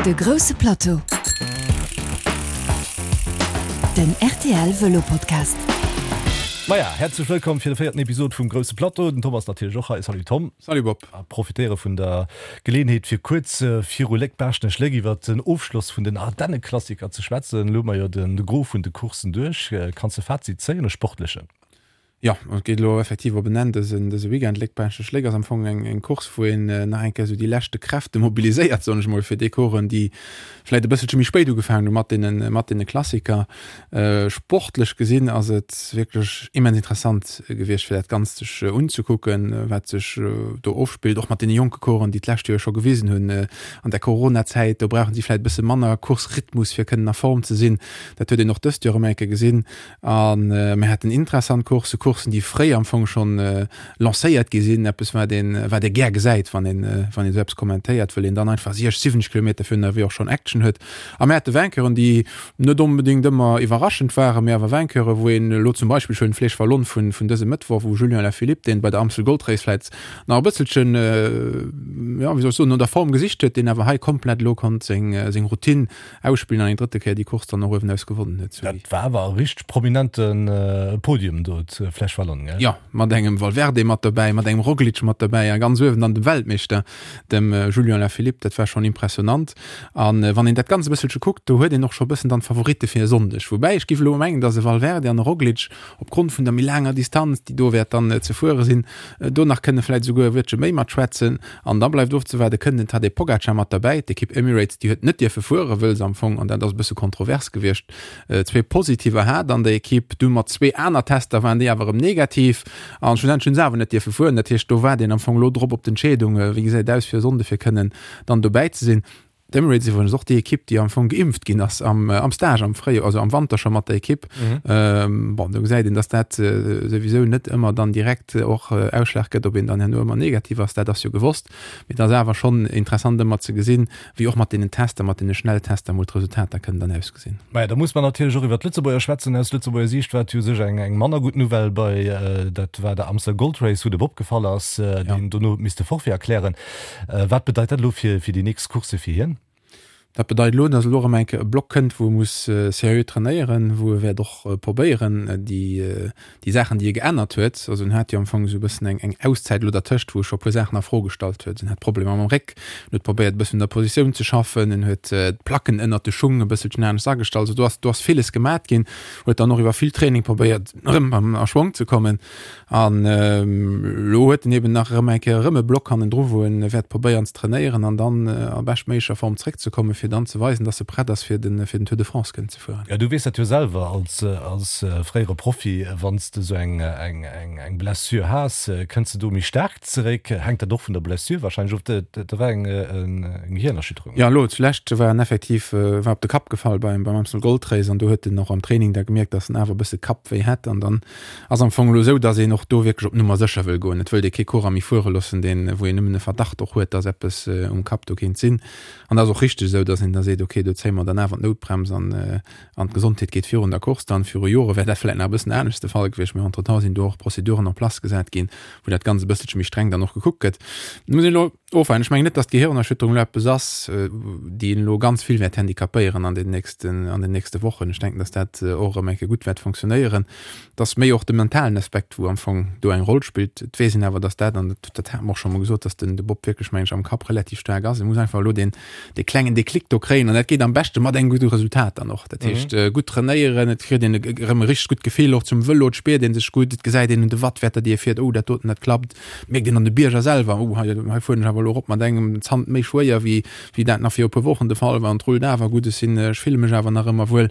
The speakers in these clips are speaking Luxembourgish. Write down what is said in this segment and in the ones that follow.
De grousse Plateau, den rtl Vëlo Podcast. Maja, häerzlech wëllkomm fir de véierten Episod vum Grousse Plateau. Den Tom ass natierlech och hei. Salut Tom. Salut Bob. A profitéiere vun der Geleeënheet fir kuerz viru Léck-Baaschtnech-Léck iwwer den Ofschloss vun den Ardenneklassiker ze schwätzen. Elo hu mer jo de Gros vun de Courssen duerch. Kanns de Fazit zéien, e sportlechen? Jo, et geet elo effektiv op en Enn dësen dëse Weekend. Léck-Baaschtnech-Léck ass am Fong eng eng Course, wou een nach eng Kéier esou déi leschte Kräfte mobiliséiert, soen ech mol, fir déi Coureuren, déi vläicht e bësselche méi spéit ugefaangen hu mat deene mat deene Klassiker. Sportlech gesinn ass et wierklech immens interessant gewiescht, fir dat Ganzt sech unzekucken, wat sech do ofspillt, och mat deene jonke Coureuren, déi d'lescht Joer scho gewisen hunn an der Coronazäit, do brauchen si vläicht e bësse manner Course-Rhythmus, fir kënnen a Form ze sinn. Dat huet een och dëst Joer erëm eng Kéier gesinn. A mir haten interessant Courssen, Courssen, déi fréi am Fong schonn lancéiert gi sinn, eppes wat een, wat ee gär gesäit, wann een, wann een esou eppes kommentéiert, wëll een dann einfach 60, 70 Kilometer virun der Arrivée och schonn Action huet. A mir hate Vainqueuren, déi net onbedéngt ëmmer iwwerraschend waren, mee awer Vainqueuren, wou een elo zum Beispill, ech huelen d'Flèche Wallonne vun, vun dësem Mëttwoch, wou Julian Alaphilippe, deen bei der Amstel Gold Race vläicht nach e bësselchen, jo, wéi soll ech soen, no der Form gesicht huet, deen awer hei komplett elo konnt seng, seng Routine Ausspillen an eng drëtte Kéier déi Course dann och uewenaus gewonnen huet. Dat war awer e richteg prominente Podium do zu Flèche Wallonne, gell? Jo, mat engem Valverde mat dobäi, mat engem Roglic mat dobäi a ganz uewen dann dem Weltmeeschter, dem Julian Alaphilippe. Dat war schonn impressionant. A wann een dat Ganzt e bësselche kuckt, do huet een och scho e bëssen dann d'Favoritte fir e Sonndeg. Woubäi ech géif elo mengen, datt e Valverde an e Roglic opgrond vun der méi laanger Distanz, déi do wäert dann ze fuere sinn, do nach kënne vläicht esouguer e Wuertche méi matschwätzen. An da bleift ofzewaarden, kënnt den Tadej Pogacar mat derbäi? D'Ekipp Emirates, déi huet net dierfe fueren, wëll se am Fong, an dat ass e bësse kontrovers gewiescht, zwee Positiver hat an der Ekipp. Du mat zwee aner Tester waren déi awer erëm negativ an schlussendlech hunn se awer net dierfe fueren. Dat heescht, do waart een am Fong elo drop op d'Entscheedung, wéi gesäit et aus fir e Sonnde fir kënnen dann dobäi ze sinn. D'Emirates iwwregens och déi Ekipp, déi am Fong geimpft ginn ass am, am Stage am Fréijoer, also am Wanter scho mat der Ekipp. Mhm. Ähm, bon, do gesäit een, dass dat äh, souwisou net ëmmer dann direkt äh, och äh, Ausschlag gëtt, ob een dann herno ëmmer negativ ass, dat ass jo gewosst. Mee et ass awer schonn interessant ëmmer ze gesinn, wéi och mat deenen Tester, mat deene Schnelltester mol d'Resultater kënnen dann ausgesinn. Maja, da muss mer natierlech och iwwer d'Lëtzebuerger schwätzen. Aus Lëtzebuerger Siicht war et jo u sech eng, eng manner gutt Nouvelle bei, äh, dat war der Amstel Gold Race, wou de Bob gefall ass, äh, deen dono huet misste Forfait erklären. Wat bedeit dat elo fir déi nächst Coursse fir hien? Dat bedeit elo, datt elo erëm eng Kéier e Block kënnt, wou e muss seriö trainéieren, wou e wäert och probéieren, déi, déi Saachen, déi e geännert huet, also en hat jo am Fong esou e bëssen eng, eng Auszäit elo dertëscht, wou e scho e puer Saachen a Fro gestallt huet. En hat Problemer mam Réck, en huet probéiert e bëssen un der Positioun ze schaffen, en huet d'Placken ënnert de Schung e bësselchen anescht agestallt. Also do ass, do ass villes gemat ginn, huet dann och iwwer vill Training probéiert, erëm a Schwong ze kommen. An elo huet en eben nach erëm eng Kéier erëm e Block hannendru, wou en wäert probéieren ze trainéieren an dann a beschtméiglecher Form zréckzekommen, fir dann ze weisen, dass e prett ass, fir den, fir den Tour de France kënnen ze fueren. Jo, du weess dat jo selwer als, als fréiere Profi, wann s de esou eng, eng, eng, eng Blessure has, kënns de do méi staark zeréck? Hänkt dat och vun der Blessure wahrscheinlech of? Dat war eng, eng Gehirnerschütterung. Jo, elo zulescht war en effektiv, war op de Kapp gefall beim, beim Amstel Gold Race an do huet en och am Training da gemierkt, dass en awer e bësse Kappwéi hätt an dann Ass am Fong elo esou, dass een och do wierklech op Nummer sécher wëll goen. Et wëllt ee kee Coureur méi fuere loossen, deen, wou een nëmmen e Verdacht och huet, dass eppes um Kapp do kéint sinn. An dat ass och richteg esou, dass een da seet, okay, do zéie mer dann awer d'Noutbrems an, an d'Gesondheet geet virun der Course dann. Viru Jore wär dat vläicht nach e bëssen anescht de Fall gewiescht, mee entretemps sinn do och Prozeduren en place gesat ginn, wou dat Ganzt e bësselche méi streng dann och gekuckt gëtt. Muss een elo ofwaarden. Ech mengen net, dass d'Gehirnerschütterung elo eppes ass, déi een elo ganz vill wäert handicapéieren an den nächsten, an den nächste Wochen. Ech denken, dass dat och erëm eng Kéier gutt wäert fonctionnéieren. Et ass méi och de mentalen Aspekt, wou am Fong do eng Roll spillt. Et weess een awer, dass dat, an dat, dat hate mer och scho mol gesot, dass den, de Bob wierklech, mengen ech, am Kapp relativ staark ass. E muss einfach elo deen, dee klengen Déclic do kréien an dat geet am beschte mat engem gudde Resultat dann och. Dat heescht, gutt trainéieren, et kritt een erëm e richteg gutt Gefill och zum Vëlo, et spiert ee sech gutt, et gesäit een un de Wattwäerter, déi ee fiert, oh dat doten, dat klappt. Mierkt een an de Bierger selwer, oh hei, hei fueren ech awer elo erop mat engem Zant méi schwéier, wéi, wéi dat nach viru e puer Wochen de Fall war an et rullt awer gutt, ech sinn, ech fille mech awer nach ëmmer wuel.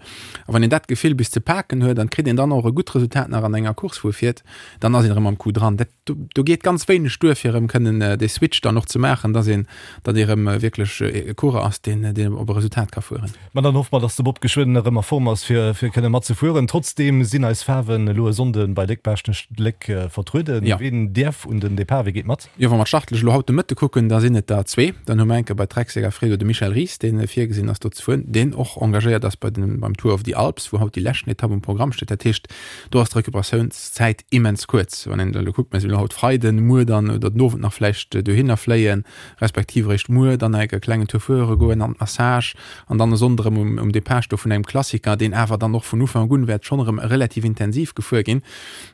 A wann een dat Gefill bis ze paken huet an kritt een dann och e gutt Resultat nach an enger Course, wou e fiert, dann ass een erëm am Coup dran. Dat, do, do geet ganz wéineg duer, fir erëm kënnen dee Switch dann och ze maachen, dass een, datt ee erëm wierklech e Coureur ass, deen, deen op e Resultat ka fueren. Ma dann hoffe mer, dass de Bob geschwënn erëm a Form ass, fir fir kënne mat ze fueren. Trotzdeem sinn eis Faarwen elo e Sonnde bei Léck-Baaschtnech-Léck vertrueden. Ja. Ween däerf un den Depart? Wie geet mat? Jo, wa mer d'Startlëscht elo haut de Mëtte kucken. kucken, da sinn et der zwee. Dann hu mer enke bei Trek-Segafredo de Michel Ries, dee virgesinn ass do ze fueren, deen och engagéiert ass bei den, beim Tour of the Alps, wou haut déi leschten Etapp um Programm steet. Dat heescht, do ass d'Recuperatiounszäit immens kuerz. Wann een elo kuckt, mir sinn elo haut Freiden, muer dann oder den Owend nach vläicht dohinner fléien, respektiv eréischt muer dann nach e klengen Tour fuere goen an d'Massage an dann e Sonnde erëm um, um Depart sto vun engem Klassiker, deen awer dann och vun Ufank un wäert schonn erëm relativ intensiv gefuer ginn.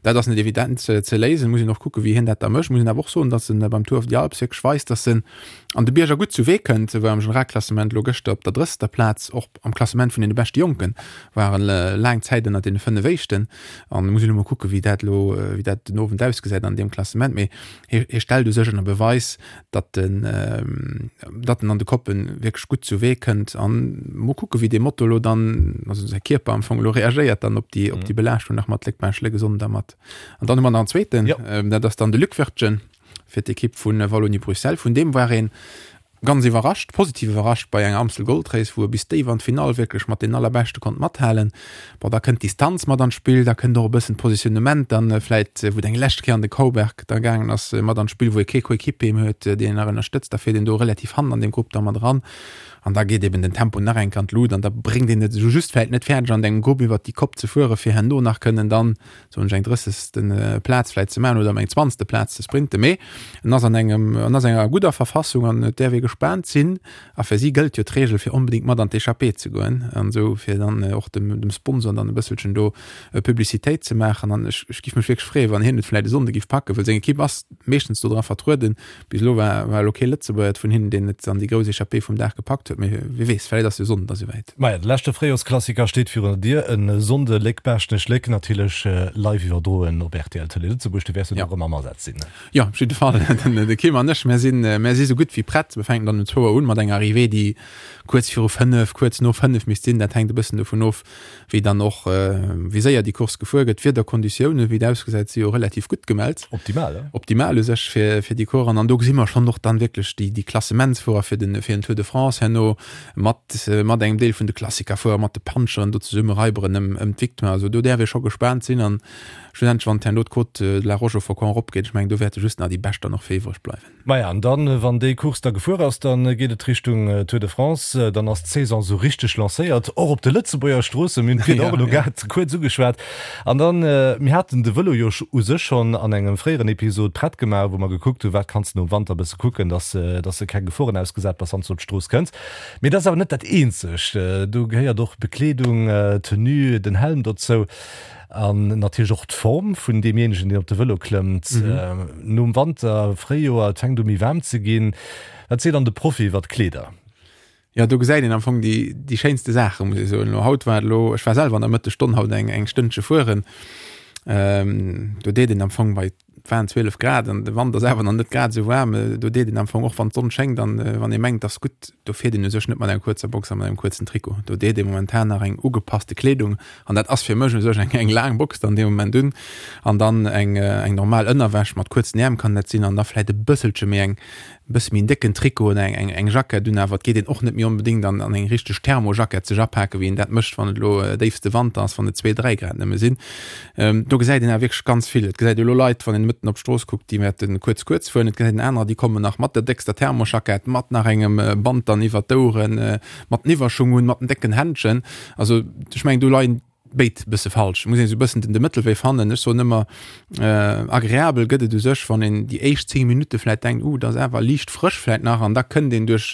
Dat ass net evident ze léisen, muss een och kucken, wéi hien dat da mécht. Muss een awer och soen, datt en beim Tour of the Alps wierklech weist, datt en an de Bierger gutt zu Wee kënnt. E war am Generalklassement elo gëschter op der drësster Plaz, och am Klassement vun deene beschte Jonken war en laang Zäit ënnert deene 5 éischten. An muss een elo mol kucken, wéi dat elo, wéi dat den Owend ausgesäit an deem Klassement. Mee hie, hie stellt u sech ënner Beweis, datt en, datt en an de Koppen wierklech gutt zu Wee kënnt. An mol kucken, wéi dee Moto elo dann, also säi Kierper am Fong elo reagéiert dann op déi, op déi Belaaschtung nach mat Léck-Baascht-Léck e Sonnden da mat. An dann hu mer nach en zweeten, dat ass dann de Luc Wirtgen fir d'Ekipp vu Wallonie-Bruxelles. Vun deem war een ganz iwwerrascht, positiv iwwerrascht bei enger Amstel Gold Race, wou e bis déif an d'Finall wierklech mat den Allerbeschte konnt mathalen. Bon, da kënnt d'Distanz mat an d'Spill, da kënnt och e bëssen d'Positionnement dann vläit, wou et eng lescht Kéier an de Cauberg da gaangen ass, mat an d'Spill, wou e kee Coéquipier méi huet, deen en nach ënnerstëtzt. Da fiert een do relativ hannen an deem Grupp da mat eran an da geet eben den Tempo nach eng Kéier an d'Lut an da bréngt een et esou just vläit net fäerdeg an engem Grupp iwwert déi Kopp ze fueren, fir herno nach kënnen dann soen ech, eng drëssegste Plaz vläit ze maachen oder ëm eng zwanzegste Plaz ze sprinten, mee en ass an engem, en ass enger gudder Verfassung an et däerf ee gespaant sinn. A fir si gëllt jo d'Reegel fir onbedéngt mat an d'Echappée ze goen an esou fir dann och dem, dem Sponsor dann e bësselchen do Publicitéit ze maachen. An ech, ech giff mech wierklech freeën, wann hien et vläit e Sonnde giff packen, well seng Ekipp ass meeschtens do dra vertrueden. Bis elo war, war elo kee Lëtzebuerger vun hinnen, deen et an déi grouss Echappée vum Dag gepackt huet, mee wie weess, vläit ass jo Sonnden da souwäit. Maja, de leschte Fréijorsklassiker steet virun der Dier, e Sonnde Léck-Baaschtnech-Léck, natierlech live iwwerdroen op rtl Tëlee Lëtzebuerg. Du wäers jo do erëm am Asaz sinn, ne? Jo, op jidde Fall. Den, de Kim an ech, mär sinn, mär si sou gutt wéi prett. Mir fänken dann um zwou Auer un mat enger Arrivée, déi kuerz viru 5, kuerz no 5 misst sinn. Dat hänkt e bëssen dovun of, wéi dann och, wéi séier déi Course gefuer gëtt. D'Wiederkonditiounen, wéi et ausgesäit, si jo relativ gutt gemellt. Optimal, he? Optimal u sech fir, fir déi Course. An do gesi mer schonn och dann wierklech déi, déi Klassementsfuerer fir den, fir den Tour de France herno mat, mat engem Deel vun de Klassikerfuerer, mat de Puncheren do zesumme raiberen ëm, ëm d'Victoire. Also do däerf ee scho gespaant sinn. An schlussendlech, wann herno d'Côte de la Roche-aux-Faucons eropgeet, ech mengen, do wäerte just nach déi Bescht dann och fir iwwreg bleiwen. Maja, an dann, wann déi Course da gefuer ass, dann geet et Richtung Tour de France. Dann ass d'Saison esou richteg lancéiert, och op de Lëtzebuerger Stroossen. Mir hunn d'Wieder och elo grad kuerz ugeschwat. An dann, mir haten de Vëlo jo u sech schonn an engem fréieren Episod prett gemaach, wou mer gekuckt hunn, wat kanns de nom Wanter e bësse kucken, dass dass de keng Geforen ausgesat bass, wann s de op d'Strooss kënns. Mee dat ass awer net dat eenzegt. Do gehéiert och Bekleedung, Tenue, den Helm dozou. An natierlech och d'Form vun deemjéinegen, deen op de Vëlo klëmmt. Nom Wanter, Fréijoer, et fänkt u méi waarm ze ginn. Wat seet dann de Profi iwwer d'Kleeder? Jo, do gesäit een am Fong déi, déi schéinste Saachen, muss ech soen. Elo haut war et elo, ech war selwer an der Mëttesstonn haut eng, eng Stënnche fueren. Do deet een am Fong bei Et waren 12 Grad an de Wand ass awer nach net grad esou waarm. Do deet een am Fong och wann d'Sonn schéngt an wann ee mengt, ass gutt, do fiert een u sech net mat enger kuerzer Box a mat engem kuerzen Trikot. Do deet ee momentan nach eng ugepasste Kleedung an dat ass fir mech u sech eng eng laang Box dann dee Moment un an dann eng eng normal Ënnerwäsch mat kuerzen Äerm kann dat sinn an da vläit e bësselche méi eng e bësse méi en décken Trikot oder eng, eng, eng Jackett un, awer et geet een och net méi onbedéngt an, an eng richteg Thermojackett sech apaken, wéi een dat mécht, wann et elo déifste Wanter ass, wann et zwee, dräi Grad nëmme sinn. Do gesäit een awer wierklech ganz vill. Et gesäit ee elo Leit, wann een mëtten op d'Strooss kuckt, déi wäerte kuerz, kuerz fueren. Et gesäit een anerer, déi kommen nach mat der déckster Thermojackett, mat nach engem Band dann iwwert d'Oueren, mat den Iwwerschung un, mat den décken Händschen. Also ech mengen, do leien béid bësse falsch. Muss een esou bëssen den de Mëttelwee fannen. Ech soen ëmmer, agreabel gëtt et u sech, wann een déi éischt 10 Minutte vläit denkt, uh, dat ass awer liicht frësch vläit nach, an da kënnt een duerch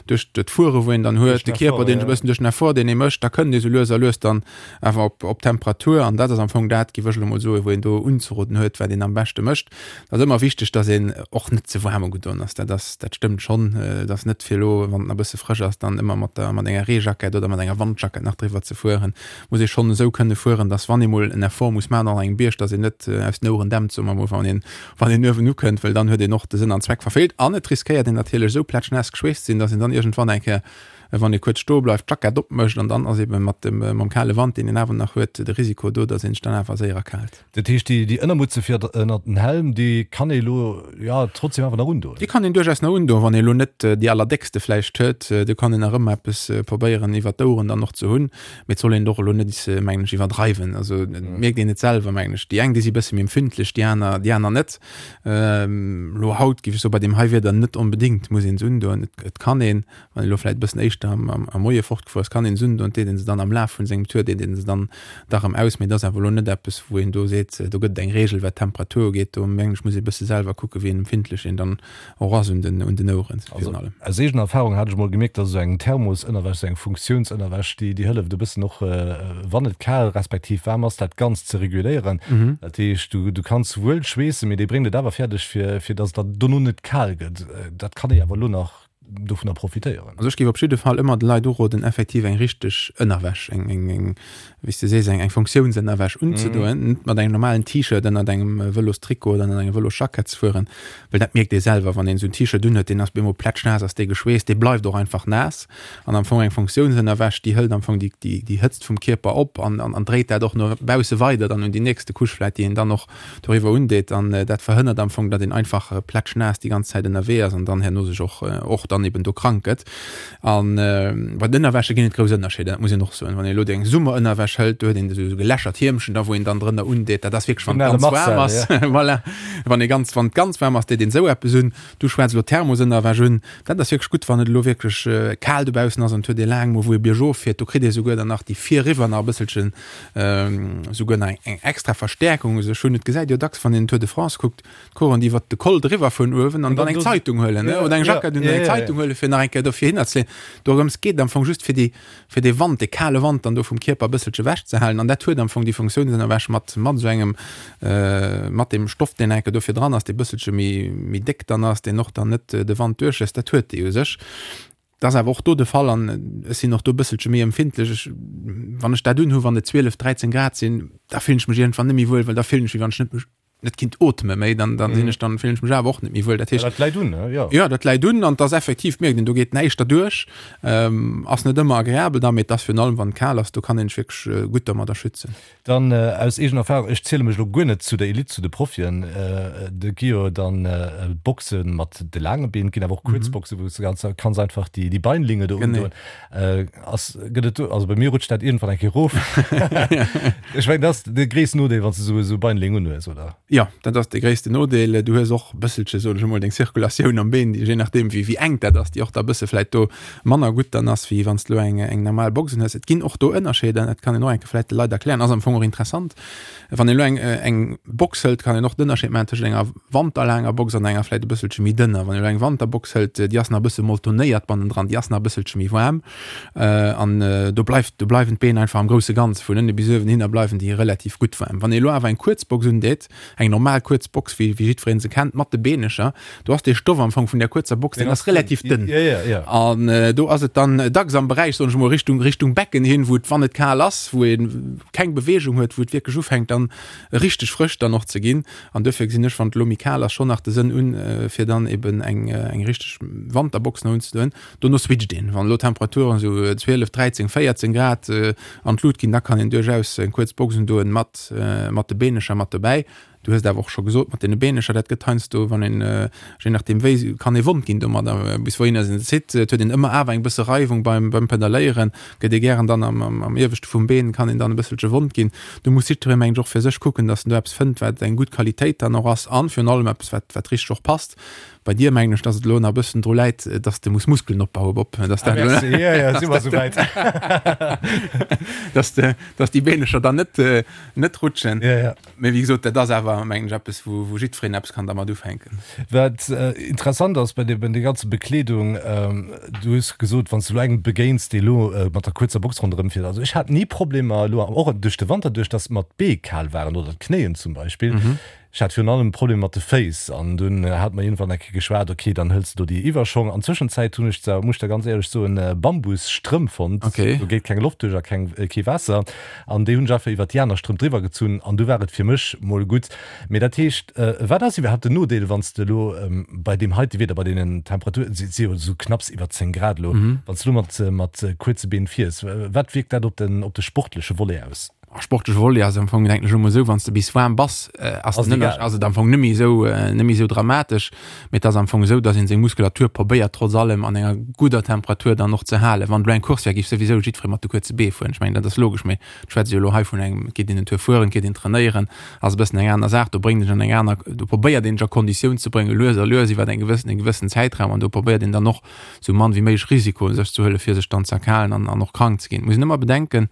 duerch d'Fuere wou een dann huet, de Kierper deen e bëssen duerch den Effort deen ee mécht, da kënnt ee sou lues a lues dann awer op op Temperatur. An dat ass am Fong dat, géif ech elo mol soen, wou een do unzeroden huet, wat een am beschte mécht. Et ass ëmmer wichteg, datt een och net ze waarm ugedoen ass. Dat ass, dat stëmmt schonn. Et ass net fir elo, wann et nach e bësse frësch ass, dann ëmmer mat der, mat enger Reejackett oder mat enger Wandjackett nach driwwer ze fueren. Muss ee schonn esou kënne fueren, datt wann ee mol en Effort muss maachen an engem Bierg, datt een net aus den Oueren dämpt, soe mer mol, wann een, wann een uewen ukënnt, well dann huet een och de Sënn an Zweck verfeelt. An et riskéiert een natierlech esou plätschnaass geschweesst ze sinn, datt een dann iergendwann eng Kéier. Wann ee kuerz stoe bleift, d'Jackett opmécht an dann ass ebe mat dem, mam kale Wand, deen een awer nach huet, de Risiko do, datt een sech dann awer séier erkaalt. Dat heescht, déi, déi Ënnermutze fir ënnert den Helm, déi kann ee elo, jo, trotzdem awer nach undoen? Déi kann een duerchaus nach undoen, wann ee elo net déi allerdéckste vläicht huet. Do kann een nach ëmmer eppes probéieren iwwert d'Oueren dann och ze hunn. Mee et soll een et och elo net, mengen ech, iwwerdreiwen. Also et mierkt een et selwer, mengen ech. Déi eng, déi si bësse méi empfindlech, déi aner, déi aner net. Elo haut géif ech soen, bei deem hei Wieder net onbedéngt muss een se undoen. Et kann een, Wann een elo vläit e bëssen éischter am Moie fortgefuer ass, kann een se undoen, deet een se dann am Laf vun sengem Tour, deet een se dann da rëm aus. Mee et ass awer elo net eppes, wou een do seet, do gëtt et eng Reegel, wat d'Temperatur ugeet. Do mengen ech, muss ee bësse selwer kucken, wéi empfindlech een dann och ass un den un den Oueren virun allem. Also aus eegener Erfahrung hat ech emol gemierkt, dass esou eng Thermosënnerwäsch, esou eng Funktiounsënnerwäsch, déi déi hëlleft e bëssen och, wann et kal respektiv waarm ass, dat Ganzt ze reguléieren. Dat heescht, du du kanns wuel schweessen, mee déi bréngt et awer fäerdeg, fir fir dass et der dono net kal gëtt. Dat kann ee awer elo nach dovunner profitéieren. Also ech géif op jidde Fall ëmmer de Leit uroden, effektiv eng richteg Ënnerwäsch, eng, eng, eng, wéi s de sees, eng, eng Funktiounsënnerwäsch unzedoen, net mat engem normalen T-Shirt ënnert engem Vëlostrikot oder ënnert engem Vëlosjackett ze fueren, well dat mierkt ee selwer, wann een esou en T-Shirt unhuet, deen ass bemol plätschnaass, ass dee geschweesst, dee bleift och einfach naass. An am Fong eng Funktiounsënnerwäsch, déi hëlt am Fong déi, déi, déi Hëtzt vum Kierper op an, an, an dréit dat och no bausse weider dann un déi nächste Couche vläicht, déi een dann och doriwwer undeet an dat verhënnert am Fong, datt een einfach plätschnaass déi ganz Zäit ënnerwee ass an dann herno sech och och dann eben do krank gëtt. An bei den Ënnerwäsche ginn et grouss Ënnerscheeder, dat muss een och soen. Wann een elo déi eng Summerënnerwäsch hëlt, do huet een esou gelächert Hiemchen da wou een dann drënner undeet, dat ass wierklech wann et ganz waarm ass, voilà, wann ee ganz wann et ganz waarm ass, deet een esou eppes un. Du schwätz elo Thermosënnerwäsch un, dat ass wierklech gutt, wann et elo wierklech kal dobaussen ass an et huet ee laang mol wou ee biergof fiert, do kritt ee souguer dann nach déi virriwwer nach e bësselchen Souguer nach eng extra Verstäerkung u sech hunn. Et gesäit jo dacks, wann een den Tour de France kuckt, d'Coureuren, déi iwwert de Col driwwer fueren uewen an dann eng Zeitung huelen, oder eng Jackett un an eng Zeitung huelen, fir nach eng Kéier dofir hinnerzeleeën. Dorëms geet et am Fong just, fir déi, fir dee Wand, dee kale Wand dann do vum Kierper e bësselche ewechzehalen. An dat huet am Fong déi Funktiounsënnerwäsch mat, mat esou engem, mat deem Stoff, deen eng Kéier dofir dran ass, dee bësselche méi, méi déck dann ass, deen och dann net de Wand duerchléisst. Dat huet déi u sech. Dat ass awer och do de Fall an ech sinn och do e bësselche méi empfindlech. Ech, wann ech dat unhu wann et 12, 13 Grad sinn, da fillen ech mech iergendwann net méi wuel, well da fillen ech wéi wann ech net mech net kinnt ootme méi, dann dann sinn ech dann fillen ech mech awer och net méi wuel. Dat heescht. Ja, dat läit un, ne? Jo. Jo, dat läit un an et ass effektiv, mierkt een, do geet näischt derduerch. Ass net ëmmer agreabel da, mee et ass virun allem wann et kal ass, do kann een sech wierklech gutt domadder schützen. Dann aus eegener Erfahrung, ech ziele mech elo guer net zu der Elite, zu de Profien, do gi jo dann Boxe mat de laange Been, et ginn awer och kuerz Boxe wou s de ganz kanns einfach déi déi Beinlinge do undoen. Ass, gëtt et do, also bei mir rutscht dat iergendwann eng Kéier erof. Ech mengen dat ass de gréissten Nodeel wann s de esou esou Beinling unhues, oder? Jo, dat ass de gréissten Nodeel. Du hues och e bësselche, soen ech emol, deng Zirkulatioun am Been, déi je nachdeem wéi wéi enk dat ass, déi och da e bësse vläit do manner gutt dann ass, wéi wann s de elo eng eng normal Box un hues. Et ginn och do Ënnerscheeder, dat kann een och eng Kéier vläicht de Leit erklären, ass am Fong och interessant. Wann een elo eng eng Box hëlt, kann een och den Ënnerscheed maachen tëschent enger wanterlaanger Box an enger vläicht e bësselche méi dënner. Wann een elo eng Wanterbox hëlt, déi ass nach e bësse moltonéiert bannendran, déi ass nach e bësselche méi waarm an do bleift do bleiwen d'Been einfach am grousse Ganze vun ënne bis uewen hinner bleiwen déi relativ gutt waarm. Wann een elo awer eng kuerz Box undeet, eng normal kuerz Box, wéi wéi jiddwereen se kennt, mat de Beenecher, do ass dee Stoff am Fong vun där kuerzer Box, deen ass relativ dënn. An do ass et dann dacks am Beräich, soen ech emol, Richtung, Richtung Becken hin, wou et, wann et kal ass, wou ee keng Beweegung huet, wou et wierklech ufänkt dann richteg frësch dann och ze ginn. An duerfir gesinn ech, wann et elo méi kal ass, schonn nach de Sënn un, fir dann eben eng, eng richteg Wanterbox nach unzedoen. Dono switcht een, wann elo d'Temperaturen esou 12, 13, 14 Grad an d'Lut ginn, da kann een duerchaus eng kuerz Box undoen mat, mat de Beenecher mat dobäi. Du hues et awer och scho gesot mat deene Beenecher, dat gëtt heiansdo, wann een, je nachdeem wéi, kann ee wond ginn domadder, bis wouhinner een se zitt. Et huet een ëmmer awer eng bësse Reiwung beim, beim Pedalléieren, gëtt ee gären dann am, am, am ieweschte vum Been kann een dann e bësselche wond ginn. Do muss jiddweree mengen ech och fir sech kucken, datt en do eppes fënnt, wat eng gutt Qualitéit dann och ass an virun allem eppes, wat, wat richteg och passt. Bei dir mengen ech, dass et elo nach e bëssen dru läit, dass de muss Muskelen opbauen, Bob. Dass dat elo, Merci, ja, ja, si mer souwäit. dass de, dass déi Beenecher dann net, net rutschen. Ja, ja. Mee wéi gesot, dat ass awer, mengen ech, eppes, wou, wou jiddwereen eppes kann dermat ufänken. Wat interessant ass bei de, bei der ganze Bekleedung, du hues gesot, wann s du elo engem begéins, dee elo mat der kuerzer Box ronderëm fiert, also ech hat ni Problemer elo, och duerch de Wanter duerch, dass mer d'Bee kal waren oder d'Knéien zum Beispill. Ech hat virun allem Problemer mat de Féiss an dunn hat mer iergendwann eng Kéier geschwat, ok, dann hëls de do déi Iwwerschong. An Zwëschenzäit hunn ech zwar, muss ech der ganz éierlech soen, Bambusstrëmp fonnt, do geet keng Loft duerch a keng, kee Waasser an déi hunn ech einfach iwwert déi aner Strëmp driwwer gezunn an du war et fir mech mol gutt. Mee dat heescht, wat ass iwwerhaapt den Nodeel, wann s de elo bei deem heite Wieder, bei deenen Temperaturen, et si jo esou knapps iwwer 10 Grad elo, wann s de elo mat, mat kuerze Been fiers, wat wierkt dat op den, op de sportleche Volet aus? Sportleche Volet ass am Fong denken ech emol esou, wann s de bis waarm bass, ass den Ënnersch ass et am Fong net méi esou net méi esou dramatesch. Mee et ass am Fong esou, datt een seng Muskulatur probéiert trotz allem an enger gudder Temperatur dann och ze halen. Wann elo eng Course wär, géif souwisou jiddweree mat de kuerze Bee fueren. Ech mengen dat ass logesch, mee ech schwätze jo elo hei vun engem, et geet een en Tour fueren, et geet een trainéieren, ass e bëssen eng aner Saach. Do bréngt een sech an eng aner, do probéiert een sech a Konditioun ze bréngen, lues a lues iwwer eng gewëssen e gewëssen Zäitraum an do probéiert een dann och esou mann wéi méiglech Risikoen sech ze huelen, fir sech dann ze erkalen an an och krank ze ginn. Et muss een ëmmer bedenken,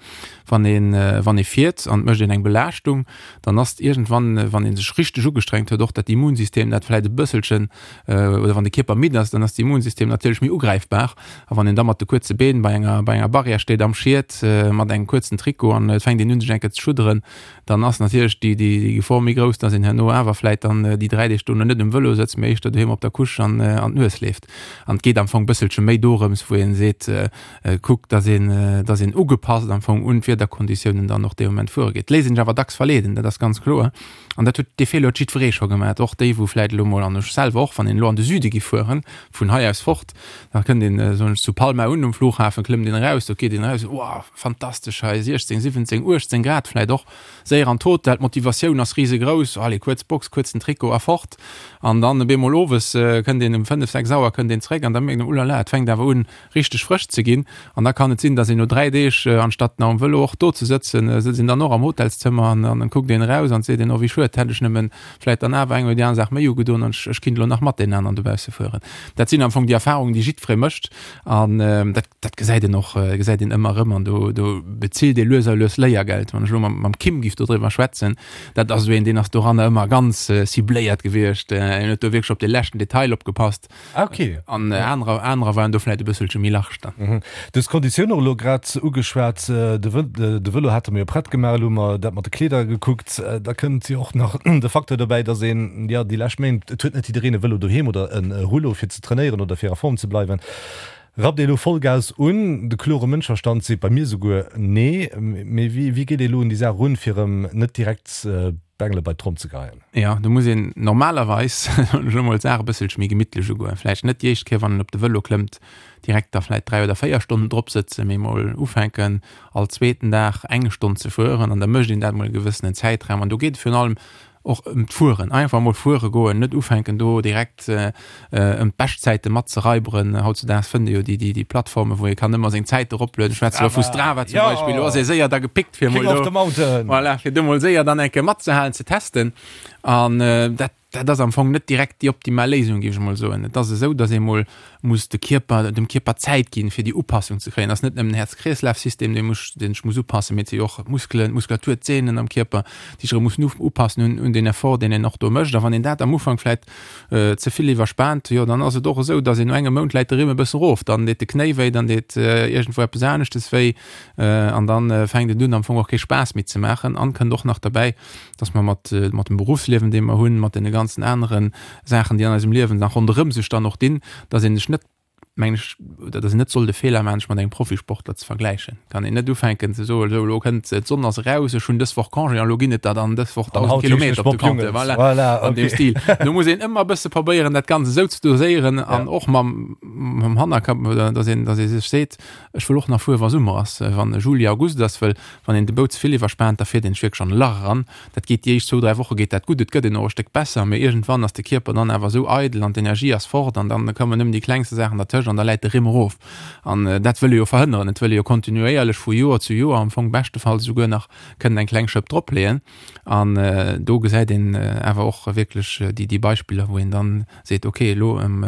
Wann een, wann ee fiert an et mécht een eng Belaaschtung, dann ass iergendwann, wann ee sech richteg ugestrengt huet, och dat Immunsystem, dat vläicht e bësselchen, oder wann de Kierper midd ass, dann ass d'Immunsystem natierlech méi ugräifbar. A wann een da mat de kuerze Been bei enger, bei enger Barrière steet am Schiet mat engem kuerzen Trikot an et fänkt een un sech eng Kéier ze schudderen, dann ass natierlech déi, déi, déi Gefor méi grouss, dass een herno awer vläicht dann déi 3 Deeg dono net um Vëlo sëtzt, mee éischter doheem op der Couche an, an d'Nues leeft. An et geet am Fong bësselche méi dorëms, wou ee seet, kuckt, dass een, dass een ugepasst am Fong un d'Wiederkonditiounen dann och dee Moment fuere geet. Léisst een sech awer dacks verleeden, dat ass ganz kloer. An dat huet, dee Feeler huet jiddweree scho gemaach, och déi, wou vläicht elo mol, an ech selwer och, wann een elo an de Süde gi fueren, vun hei aus fort, da kënnt een, soen ech, zu Palma un um Flughafen, klëmmt een eraus, do geet een eraus, Wow, fantastesch hei, 16, 17, 18 Grad vläicht och, séier an d'Hotel, d'Motivatioun ass risegrouss, allez, kuerz Box, kuerzen Trikot a fort. An dann op eemol owes kënnt een um 5, 6 Auer kënnt een zeréck an da mierkt een, Ulala, et fänkt awer un, richteg frësch ze ginn an da kann et sinn, dass een no 3 Deeg, anstatt nach um Vëlo och do ze sëtzen, sëtzt een dann och am Hotelszëmmer an an kuckt een eraus an seet een, oh wéi schued, hätt ech nëmmen vläit dann awer eng oder déi aner Saach méi ugedoen an ech kinnt elo nach mat deenen aneren dobausse fueren. Dat sinn am Fong déi Erfahrungen, déi jiddweree mécht an dat dat gesäit een och, gesäit een ëmmer erëm an do do bezilt ee lues a lues Léiergeld. Wann ech elo mam mam Kim giff dodriwwer schwätzen, dat ass esou een, deen ass doranner ëmmer ganz cibléiert gewiescht, en huet do wierklech op de leschten Detail opgepasst. Ah, okay. An anerer, anerer waren do vläit e bësselche méi large dann. Mhm. Du hues d'Konditioun och elo grad ugeschwat. De Vë, de Vëlo hate mer jo prett gemaach, elo hu mer dat mat de Kleeder gekuckt. Da kënnt jo och nach de Facteur dobäi, dass een, jo, déi lescht Méint, et huet net jiddereen e Vëlo doheem oder e Rouleau fir ze trainéieren oder fir a Form ze bleiwen. Rappt ee elo Vollgas un? De klore Mënschverstand seet bei mir souguer nee. Mee wéi, wéi geet ee elo un déi Saach erun, fir erëm net direkt d'Bengele bei d'Tromm ze geheien? Jo, do muss een normalerweis, soen ech elo mol, d'Saach e bësselche méi gemittlech ugoen. Vläicht net déi éischt Kéier, wann een op de Vëlo klëmmt, direkt da vläicht 3 oder 4 Stonnen drop sëtzen, mee mol ufänken, all zweeten Dag eng Stonn ze fueren an da mécht een dat mol e gewëssenen Zäitraum. An do geet et virun allem och ëm d'Fueren, einfach mol fuere goen, net ufänken do direkt ëm d'Beschtzäite mat ze raiberen. Hautzedaags fënnt ee jo déi, déi, déi Plattformen, wou ee kann ëmmer seng Zäit eroplueden. Ech schwätze elo vu Strava zum Beispill, do ass ee séier da gepickt, fir mol do, voilà, fir do mol séier dann eng Kéier matzehalen, ze testen. An dat, dat ass am Fong net direkt déi optimal Léisung, géif ech mol soen. Et ass esou, datt ee mol muss de Kierper, dem Kierper Zäit ginn, fir déi Upassung ze kréien. Et ass net nëmmen den Häerz-Kreeslaf-System, dee muss, deen sech muss upassen, mee et si jo och d'Muskelen, d'Muskulatur, d'Sehnen am Kierper, déi sech erëm mussen upassen un, un deen Effort, deen een och do mécht. A wann een dat am Ufank vläicht ze vill iwwerspaant, jo, dann ass et och esou, datt een no engem Mount läit de Rimm e bësse rof, dann deet de Knéi wéi, dann deet iergendwou eppes aneschtes wéi an dann fänkt et un am Fong och kee Spaass méi ze maachen. An kënnt och nach derbäi, datt mer mat, mat dem Beruffsliewen, dee mer hunn, mat deene ganzen anere Saachen, déi an eisem Liewen nach ronderëm sech dann och dinn, datt een sech net, mengen ech, oder datt een net soll de Feeler maachen, sech mat engem Profisportler ze vergläichen. Kann een net ufänken ze soen, esou elo kënnt d'Sonn ass eraus, ech hunn dës Woch Congé an elo ginn et der dann dës Woch 1.000 Kilometer op de Compteur. Voilà, voilà, an deem Stil. Do muss een ëmmer e bësse probéieren, dat Ganzt esou ze doséieren an och mam, mam Hannerkapp, datt een, datt ee sech seet, ech wëll och nach fuere wa Summer ass, wann Juli, August ass, wëll wann een de Bou ze vill iwwerspaant, da fiert een sech wierklech an e Lach eran. Dat geet déi éischt zwou, dräi Woche geet dat gutt, et gëtt een och e Stéck besser, mee iergendwann ass de Kierper dann awer esou eidel an d'Energie ass fort an dann kommen nëmmen déi klengste Saachen dertëscht an da läit de Rimm erof. An dat wëll ee jo verhënneren. Et wëll ee jo kontinuéierlech vu Joer zu Joer am Fong beschtefalls esouguer nach kënnen eng kleng Schëpp dropleeën. An do gesäit een awer och wierklech déi, déi Beispiller, wou een dann seet, ok, elo am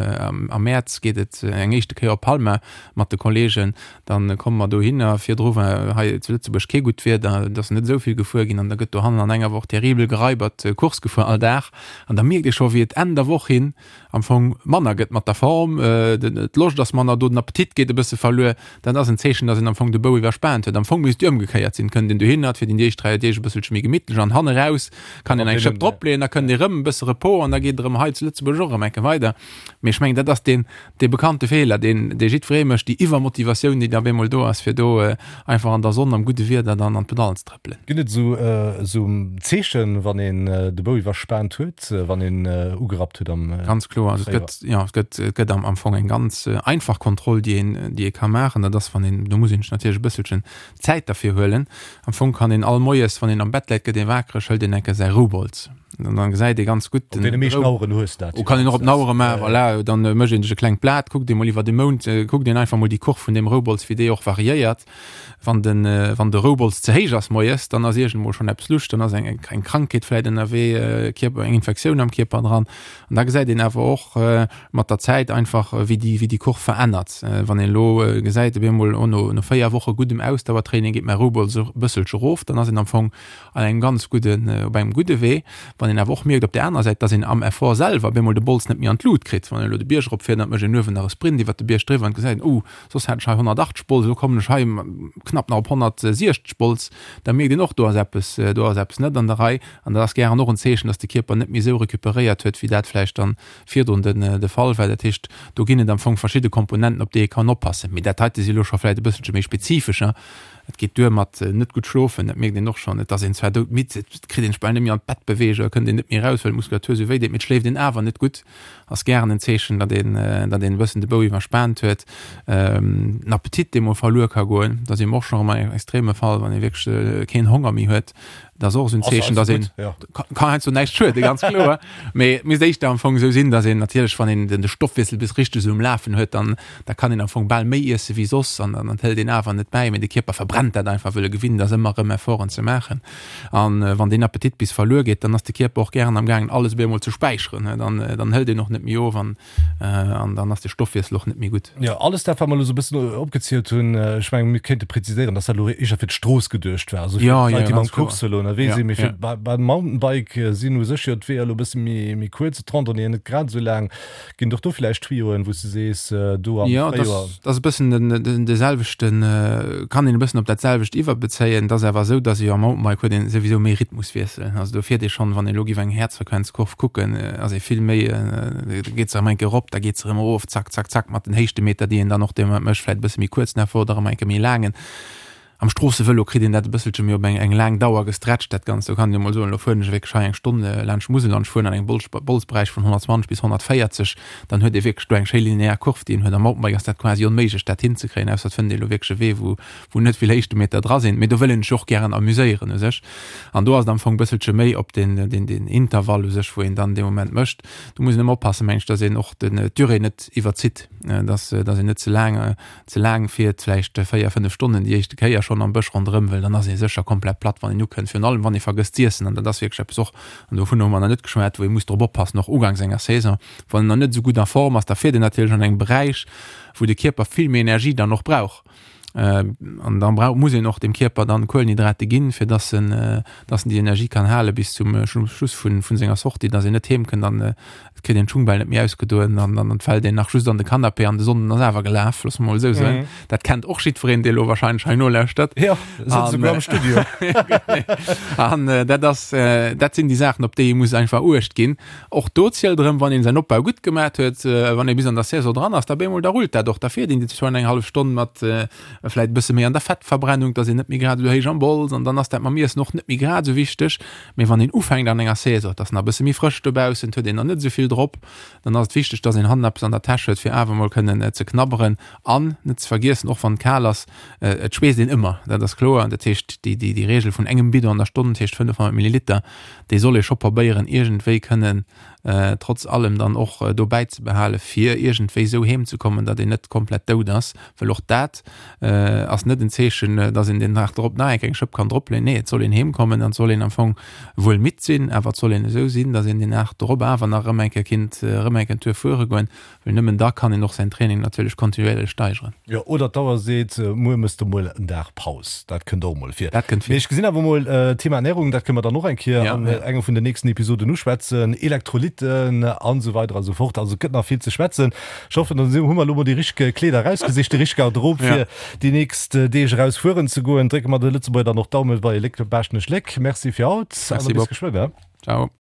Mäerz geet et eng éischte Kéier op Palma mat de Kolleegen, Dann komme mer dohinner. Virdru war hei zu Lëtzebuerg kee gutt Wieder, et ass net esou vill gefuer ginn an da gëtt dohannen an enger Woch terribel geraibert Course gefuer all Dag. An da mierkt ee scho wéi et Enn der Woch hin am Fong manner gëtt mat der Form, d'Loscht. d'Loscht ass manner do, den Appetit geet e bësse verluer. Dat ass en Zeechen, dass een am Fong de Bou iwwerspaant huet. Am Fong misst et jo ëmgekéiert sinn, kënnt een dohinner, et fiert een déi éischt 3 Deeg e bësselche méi gemittlech an hanne raus kann een eng Schëpp dropleeën, da kënnt ee rëm e bësse Repos an da geet et erëm hei zu Lëtzebuerg och erëm eng Kéier weider. Mee ech mengen, dat ass deen, dee bekannte Feeler, deen, dee jiddweree mécht, déi Iwwermotivatioun, déi da op eemol do ass, fir do einfach an der Sonn, am gudde Wieder dann an d'Pedallen ze trëppelen. Ginn et esou, esou Zeechen, wann een de Bou iwwerspaant huet, wann een ugerappt huet am Ganz kloer. Also et gëtt, jo, et gëtt, et gëtt am, am Fong eng ganz einfach Kontroll, déi een, déi ee ka maachen. Dat ass, wann een, do muss een sech natierlech e bësselchen Zäit derfir huelen. Am Fong kann een all Moies, wann een am Bett läit, gëtt ee wakereg, hëlt een eng Kéier säi Roubolz. An dann gesäit ee ganz gutt Op deene meeschten Aueren hues de dat jo. Kann een och op den Auere maachen, voilà. Dann mécht een sech e klengt Blat, kuckt ee mol iwwer de Mount, kuckt een einfach mol déi Kurv vun deem Roubolz, wéi déi och variéiert. Wann den, wann de Roubolz ze héich ass moies, dann ass iergendmol schonn eppes lusch, dann ass eng, eng Krankheet vläit ënnerwee, Kierper, eng Infektioun am Kierper dran. An da gesäit een awer och mat der Zäit einfach, wéi déi, wéi déi Kurv verännert. Wann een elo gesäit, op eemol, oh, no, no 4 Woche guddem Ausdauertraining geet mäi Roubolz e bësselche erof, dann ass een am Fong an engem ganz gudden, op engem gudde Wee. Wann een awer och mierkt op där anerer Säit, dass een am Effort selwer op eemol de Bols net méi an d'Lut kritt, wann een elo de Bierg eropfiert an et mécht een uewen nach e Sprint iwwert de Bierg driwwer an gesäit, oh, soss hat ech hei 180 Bols, elo kommen ech hei knapp nach op 160 Bols, da mierkt een och, do ass eppes, do ass eppes net an der Rei. An dat ass gären och en Zeechen, dass de Kierper net méi esou recuperéiert huet, wéi dat vläicht dann virdrun den de Fall war. Dat heescht, do ginn et am Fong verschidde Komponenten, op déi ee kann oppassen. Mee dat heite si elo scho vläicht e bësselche méi spezifescher. Et geet duer mat net gutt schlofen, dat mierkt een och schonn. Et ass een zwar doudmidd, et kritt een sech bal net méi an d'Bett beweegt oder kënnt een net méi eraus, well d'Muskulatur esou wéi deet, mee et schléift een awer net gutt. Ass gären en Zeechen, datt een, datt een e bëssen de Bou iwwerspaant huet. Den Appetit, dee mol verluer ka goen, dat ass eben och schonn erëm en extreme Fall, wann ee wierklech keen Honger méi huet. Dat ass och esou en Zeechen, datt een, kann heiansdo näischt schueden, ganz kloer. Mee et misst éischter am Fong esou sinn, datt een natierlech, wann een de Stoffwiessel bis richteg esou um Lafen huet, dann da kann een am Fong bal méi iesse wéi soss an dann hëlt een awer net bäi. Mee de Kierper verbrennt dat einfach, wëll e gewinnt ass, ëmmer erëm Efforten ze maachen. An wann deen Appetit bis verluer geet, dann ass de Kierper och gären am gaangen, alles op eemol ze späicheren. Dann dann hëlt een och net méi of an An dann ass de Stoffwiessel och net méi gutt. Jo, alles dat, wat mer elo esou e bëssen opgezielt hunn, ech mengen, mir kéinte präziséieren, dass dat elo éischer fir d'Strooss geduecht war, also fir d'Leit, déi mam Course-Vëlo ënnerwee sinn. Mee fir beim Mountainbike sinn u sech jo d'Weeër elo e bësse méi kuerz, d'Randonnéeën net grad esou laang. Ginn et och do villäicht Tuyauxen, wou s de sees, do am Fréijoer? Jo, dat ass e bëssen de selwechten, kann een e bëssen op dat selwecht iwwerbezéien. Et ass awer esou, dass ee jo am Mountainbike huet een souwisou méi Rhythmuswiessel. Also do fiert ee schonn, wann ee elo géif eng Häerzfrequenzkurv kucken, ass ee vill méi, da geet se erëm eng Kéier erop, da geet se erëm erof, zack, zack, zack, mat den Héichtemeter, déi een dann och dee Moment mécht, vläicht e bësse méi kuerzen Effort oder erëm eng Kéier méi laangen. Am Stroossevëlo kritt een dat e bësselche méi op eng eng laang Dauer gestretcht, dat Ganzt. Do kann een jo mol soen, elo fueren ech wierklech hei eng Stonn laanscht d'Musel an ech fueren an engem Bolz Bolzberäich vun 120 bis 140, dann huet ee wierklech do eng schéi linear Kurv, déi een huet. Am Mountainbike ass dat quasi onméiglech, dat hinzekréien, ausser et fënnt ee elo wierklech e Wee, wou wou net vill Héichtemeter dra sinn. Mee do wëll een sech och gären amuséieren u sech. An do ass et am Fong e bësselche méi op den den den Intervall u sech, wou een dann dee Moment mécht. Do muss een ëmmer oppassen, meng ech, dass een och den d'Durée net iwwerzitt, dass dass een net ze laang ze laang fiert, vläicht 4, 5 Stonnen déi éischte Kéier schonn am Bësch ronderëm, well dann ass ee sécher komplett platt, wann een ukënnt, virun allem wann ee vergësst z'iessen. An dat ass wierklech eppes och, an dovunner hu mer nach net geschwat, wou ee muss drop oppassen, och uganks enger Saison, wann een nach net esou gutt a Form ass, da fiert een natierlech an engem Beräich, wou de Kierper vill méi Energie dann och brauch. An da brauch, muss een och dem Kierper dann Kuelenhydrate ginn, fir dass en, dass en déi Energie kann hale bis zum Schluss vun, vun senger Sortie, dass een net heem kënnt an et kritt een d'Schung bal net méi ausgedoen an dann fält een nach just an de Canapé an de Sonnden ass awer gelaf, loosse mer mol esou soen. Dat kennt och jiddwereen, dee elo wahrscheinlech hei nolauschtert. Jo, sëtzt esouguer am Studio. An dat ass, dat sinn déi Saachen, op déi ee muss einfach Uecht ginn. Och do zielt erëm, wann een säin Opbau gutt gemat huet, wann ee bis an der Saison dran ass, da bemol da rullt dat och. Da fiert een déi zwar eng hallef Stonn mat vläit e bësse méi an der Fettverbrennung, dass een net méi grad esou héich am Bols an dann ass dat mam Iessen och net méi grad esou wichteg. Mee wann een ufänkt an enger Saison, et ass nach e bësse méi frësch dobaussen, et huet een nach net esou vill drop, dann ass et wichteg, dass een hannen eppes an der Täsch huet, fir awer mol kënnen ze knabberen. An net ze vergiessen, och wann et kal ass, et schweesst een ëmmer, dat ass kloer. Dat heescht, déi déi Reegel vun engem Bidon an der Stonn, dat heescht 500 Milliliter, déi soll ee scho probéieren iergendwéi kënnen trotz allem dann och do bäizebehalen, fir iergendwéi esou heem ze kommen, datt een net komplett dout ass. Well och dat ass net en Zeechen, datt een den Dag drop nach eng Kéier eng Schëpp kann dropleeën. Nee, et soll een heem kommen an et soll een am Fong wuel midd sinn, awer et soll een esou sinn, datt een den Dag drop awer nach erëm eng Kéier kinnt erëm eng Kéier en Tour fuere goen. Well nëmmen da kann een och säin Training natierlech kontinuéierlech steigeren. Jo, oder d'Auer seet, muer mëss de mol en Dag Paus. Dat kënnt och mol vir. Dat kënnt vir. Mee ech gesinn awer mol, Thema Ernährung, dat kënne mer dann och eng Kéier an enger vun den nächsten Episoden uschwätzen. Elektrolytter. Visitten an esou weider a sou fort. Also et gëtt nach vill ze schwätzen. Ech hoffen, dann hu mer elo mol déi richteg Kleeder erausgesicht, déi richteg Garderobe fir déi nächst Deeg eraus fueren ze goen. Drécke mer de Lëtzebuerger dann och d'Daumen bei Léck Baaschtnech Léck. Merci fir haut an da bis geschwënn. Ciao.